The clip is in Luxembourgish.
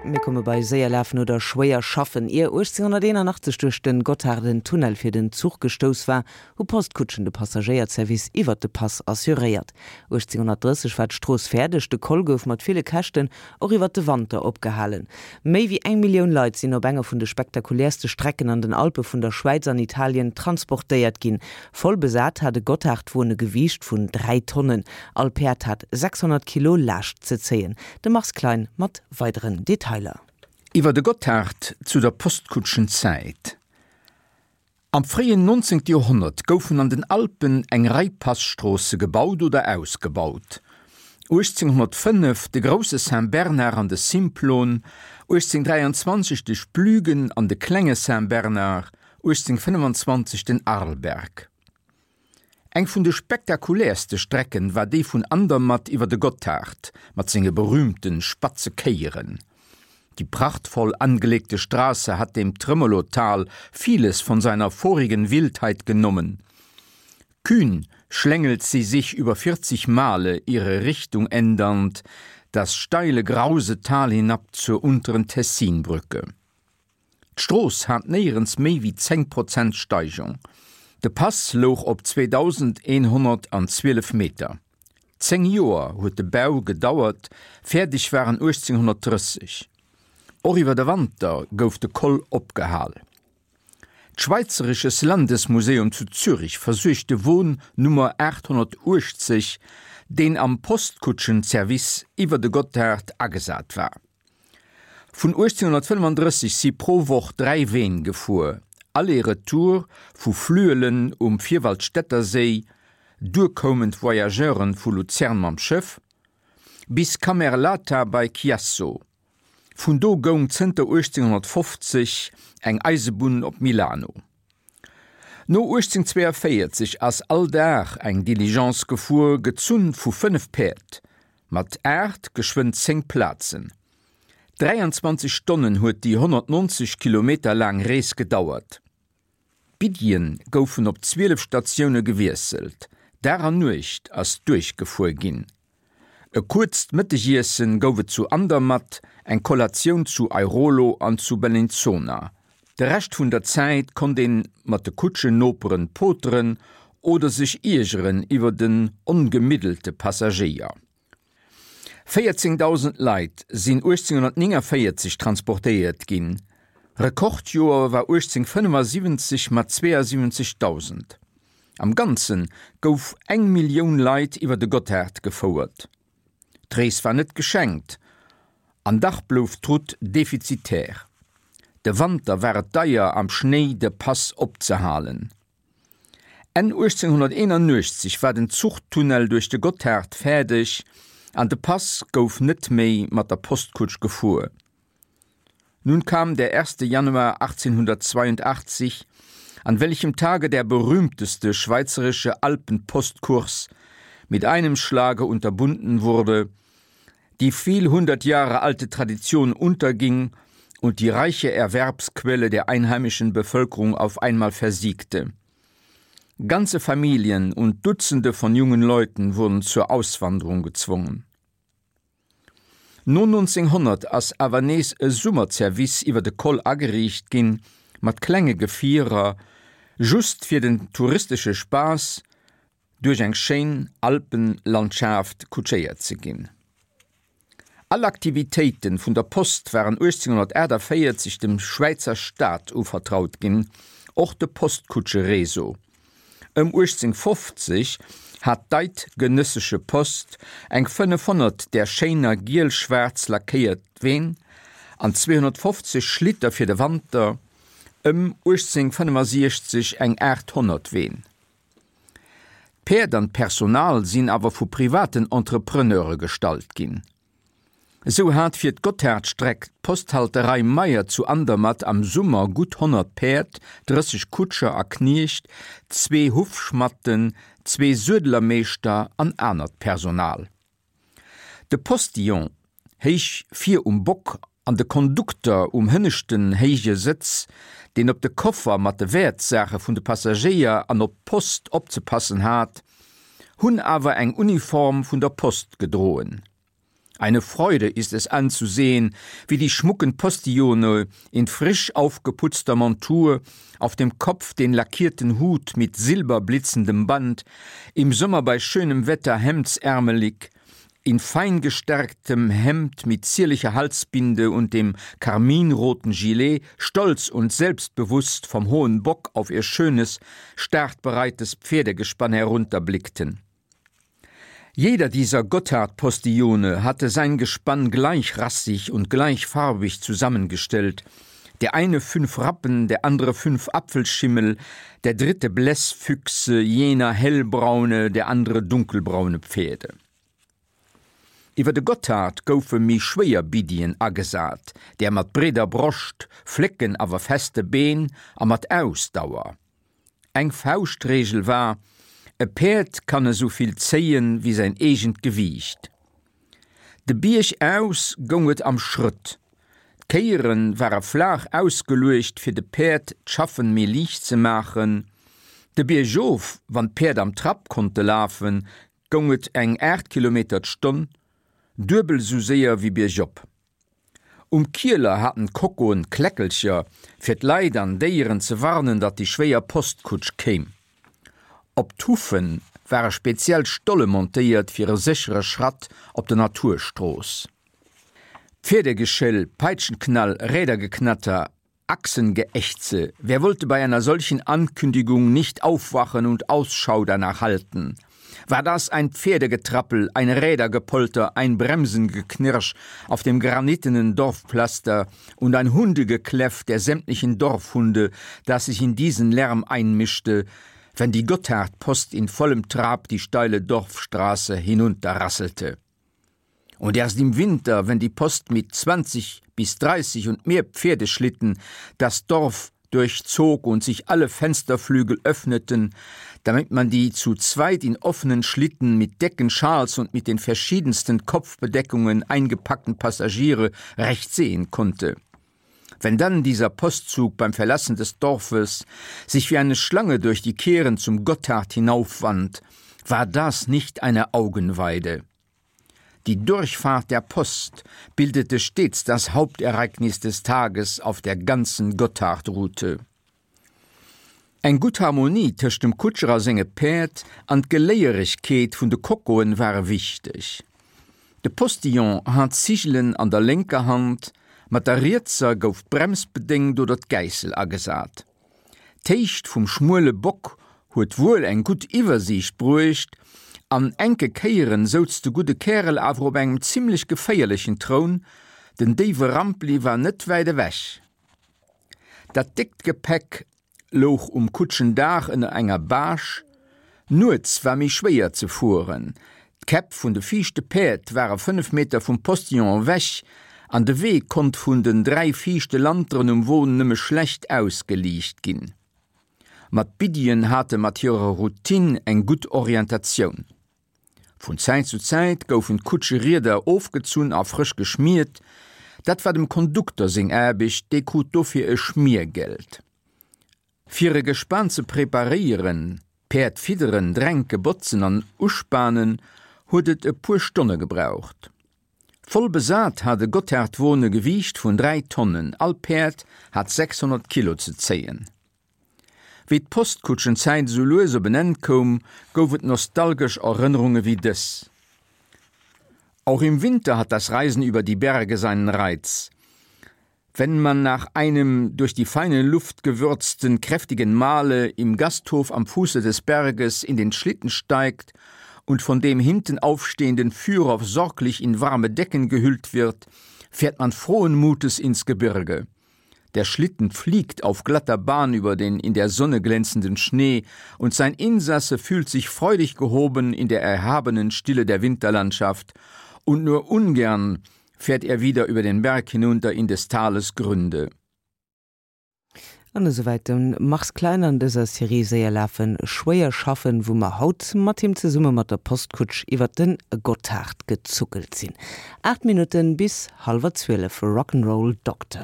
Mir komme bei séier lafen oder schwéier schaffen. Ier 1881 duerch den Gotthard en Tunnel fir den Zuch gestouss war, hu Postkutschen de Passagéierservice iwwert de Pass assuréiert. 1830 war d'Strooss fäerdeg, de Col gouf mat ville Käschten och iwwert de Wanter opgehalen. Méi wéi eng Millioun Leit sinn op enger vun de spektakuläerste Strecken an den Alpe vun der Schwäiz an Italien transportéiert ginn. Voll besat hat e Gotthardwon e Gewiicht vun 3 Tonnen. All Päerd hat 600 Kilo Laascht ze zéien. De Mars Klein mat weideren Detailer. Iwwer de Gotthard zu der Postkutschenzäit. Am fréien 19. Joerhonnert goufen an den Alpen eng Rei Passtroosse gebaut oder ausgebaut, 1805 de Grousse Saint-Bernard an de Simplon, 1823 de Splügen an de Klenge Saint-Bernard, 1825 den Arlberg. Eng vun de spektakuläerste Strecken war déi vun Andermatt iwwer de Gotthard mat senge berühmte spatze Kéieren. Die prachtvoll angelegte Straße hat dem Tremolo-Tal vieles von seiner vorigen Wildheit genommen. Kühn schlängelt sie sich über 40 Male ihre Richtung ändernd das steile grause Tal hinab zur unteren Tessinbrücke. D'Strooss hat néierens méi wéi 10 Prozent Steigung. De Pass louch op 2.112 Meter. 10 Joer huet de Bau gedauert, fäerdeg war en 1830. Och iwwer de Wanter gouf de Col opgehal. D'Schweizerisches Landesmuseum zu Zürich versuergt de Won Nummer 880, deen am Postkutschenservice iwwer de Gotthard agesat war. Vun 1835 si pro Woch 3 Ween gefuer, Aller-Retour vu Flüelen um Vierwaldstätterséi, duer koumen d'Voyageuren vu Luzern mam Schëff, bis Camerlata bei Chiasso. Vun do goung zënter 1850 eng Eisebunn op Milano. No 1842 ass all Dag eng Diligence gefuer, gezunn vu 5 Päerd, mat 8, geschwënn 10 Plazen. 23 Stonnen huet déi 190 Kilometer laang Rees gedauert. D'Biddien goufen op 12 Statioune gewiesselt, Dag an Nuecht ass duerchgefuer ginn. E kuerzt Mëttegiessen gouf et zu Andermatt, eng Kollatioun zu Airolo an zu Bellinzona. De Rescht vun der Zäit konnt een mat de Kutschennoperen poteren oder sech iergeren iwwer den ongemiddelte Passagéier. 14.000 Leit sinn 1849 transportéiert ginn, Rekordjoer war 1875 mat 72.000. Am Ganze gouf eng Millioun Leit iwwer de Gotthard gefouert. D'Rees war net geschenkt, an dach blouf d'Route defizitär. De Wanter war et deier am Schnéi de Pass opzehalen. Enn 1881 war den Zuchtunnel duerch de Gotthard fäerdeg an de Pass gouf net méi mat der Postkutsch gefuer. Nun kam der 1. Januar 1882, an welchem Tage der berühmteste schweizerische Alpenpostkurs mit einem Schlage unterbunden wurde, die viel hundert Jahre alte Tradition unterging und die reiche Erwerbsquelle der einheimischen Bevölkerung auf einmal versiegte. Ganze Familien und Dutzende von jungen Leuten wurden zur Auswanderung gezwungen. No 1900 ass awer nees e Summerzervice iwwer de Col ageriicht ginn, mat klenge Gefierer, just fir den touristesche Spaass duerch eng schéin Alpenlandschaaft kutschéiert ze ginn. All Aktivitéiten vun der Post waren 1848 dem Schwäizer Staat uvertraut ginn, och de Postkutschereseau. Ëm 1850 hat d'Eidgenössische Post eng 500 där schéiner giel-schwaarz lackéiert Ween an 250 Schlitter fir de Wanter, ëm 1865 eng 800 Ween. D'Päerd an d'Personal sinn awer vu privaten Entrepreneure gestallt ginn. Esou hat fir d'Gotthardstreck d'Posthalterei Meyer zu Andermatt am Summer gutt 100 Päerd, 30 Kutscher a Kniecht, zwee Huffschmatten, zwee Suedelermeeschter an anert Personal. De Postillon, héich vir um Bock, an de Kondukter um hënneschten héije Sëtz, deen op de Koffer mat de Wäertsaache vun de Passagéier an op d'Post opzepassen hat, hunn awer eng Uniform vun der Post gedroen. Eine Freude ist es anzusehen, wie die schmucken Postillone in frisch aufgeputzter Montur, auf dem Kopf den lackierten Hut mit silberblitzendem Band, im Sommer bei schönem Wetter hemdsärmelig, in fein gestärktem Hemd mit zierlicher Halsbinde und dem karminroten Gilet, stolz und selbstbewusst vom hohen Bock auf ihr schönes, startbereites Pferdegespann herunterblickten. Jeder dieser Gotthardpostillone hatte sein Gespann gleichrassig und gleichfarbig zusammengestellt, der eine fünf Rappen, der andere fünf Apfelschimmel, der dritte Blässfüchse, jener hellbraune, der andere dunkelbraune Pferde. Iwwer de Gotthard goufe méi schwéier Biddien agesat, där mat breeder Broscht, flécken awer feste Been a mat Ausdauer. Eng Fauschtreegel war, E Päerd kann esou vill zéien, wéi säin eegent Gewiicht. De Bierg aus goung et am Schrëtt. D'Kéiere ware flaach ausgeluecht, fir de Päerd d'Schaffen méi liicht ze maachen. De Bierg of, wann d'Päerd am Trapp konnte lafen, goung et eng 8 Kilometer d'Stonn, duebel esou séier wéi biergop. Um Kieler haten d'Kockoen Kläckelcher, fir d'Leit an Déieren ze warnen, datt déi schwéier Postkutsch kéim. Op d'Hufe ware speziell Stolle montéiert fir e séchere Schratt op der Naturstrooss. Pferdegeschéll, Peitschenknall, Rädergeknatter, Achsengeächze, wer wollte bei einer solchen Ankündigung nicht aufwachen und Ausschau danach halten? War das ein Pferdegetrappel, ein Rädergepolter, ein Bremsengeknirsch auf dem granitenen Dorfpflaster und ein Hundegekläff der sämtlichen Dorfhunde, das sich in diesen Lärm einmischte, wenn die Gotthardpost in vollem Trab die steile Dorfstraße hinunterrasselte? Und erst im Winter, wenn die Post mit 20 bis 30 und mehr Pferdeschlitten das Dorf durchzog und sich alle Fensterflügel öffneten, damit man die zu zweit in offenen Schlitten mit Decken, Schals und mit den verschiedensten Kopfbedeckungen eingepackten Passagiere recht sehen konnte. Wenn dann dieser Postzug beim Verlassen des Dorfes sich wie eine Schlange durch die Kehren zum Gotthard hinaufwand, war das nicht eine Augenweide. Die Durchfahrt der Post bildete stets das Hauptereignis des Tages auf der ganzen Gotthardroute. Eng gutt Harmonie tëscht dem Kutscher a senge Päerd an d'Geléieregkeet vun de Kokoen ware wichteg. De Postillon hat d'Zigelen an der lénker Hand, mat der rietser gouf d'Brems bedéngt oder d'Gäissel agesat. D'Héicht vum schmuele Bock huet wuel eng gutt Iwwersiicht bruecht, an enke Kéieren souz de gudde Kärel awer op engem zimmlech geféierlechen Troun, den déiwe Rampli war net wäit ewech. Dat déckt Gepäck louch um Kutschendaach ënner enger Bâche. Nuets war méi schwéier ze fueren. D'Käpp vun de viischte Päerd ware 5 Meter vum Postillon ewech an de Wee konnt vun den 3 viischte Lanteren um Won nëmme schlecht ausgeliicht ginn. Ma d'Biddien hate mat hirer Routine eng gutt Orientatioun. Vun Zäit zu Zäit goufen d'Kutscherieder ofgezunn a frësch geschmiert. Dat war dem Kondukter seng Aarbecht, dee krut dofir e Schmiergeld. Fir e Gespan ze preparéieren, d'Päerd fidderen, dränke, botzen an uspanen, huet et e puer Stonne gebraucht. Voll besat hat e Gotthardwon e Gewiicht vun 3 Tonnen, all Päerd hat 600 Kilo ze zéien. Wéi d'Postkutschenzäit esou lues op en Enn koum, gouf et nostalgesch Erënnerunge wéi dës. Auch im Winter hat das Reisen über die Berge seinen Reiz. Wenn man nach einem durch die feine Luft gewürzten, kräftigen Mahle im Gasthof am Fuße des Berges in den Schlitten steigt und von dem hinten aufstehenden Führer sorglich in warme Decken gehüllt wird, fährt man frohen Mutes ins Gebirge. Der Schlitten fliegt auf glatter Bahn über den in der Sonne glänzenden Schnee, und sein Insasse fühlt sich freudig gehoben in der erhabenen Stille der Winterlandschaft, und nur ungern fährt er wieder über den Berg hinunter in des Tales Gründe. An esouwäit de Mars Klein an dëser Serie Séier lafen, schwéier schaffen, wou mer haut mat him zesumme mat der Postkutsch iwwert de Gotthard gezuckelt sinn. 8 Minutten bis hallwer 12, Rock'n'Roll Doctor.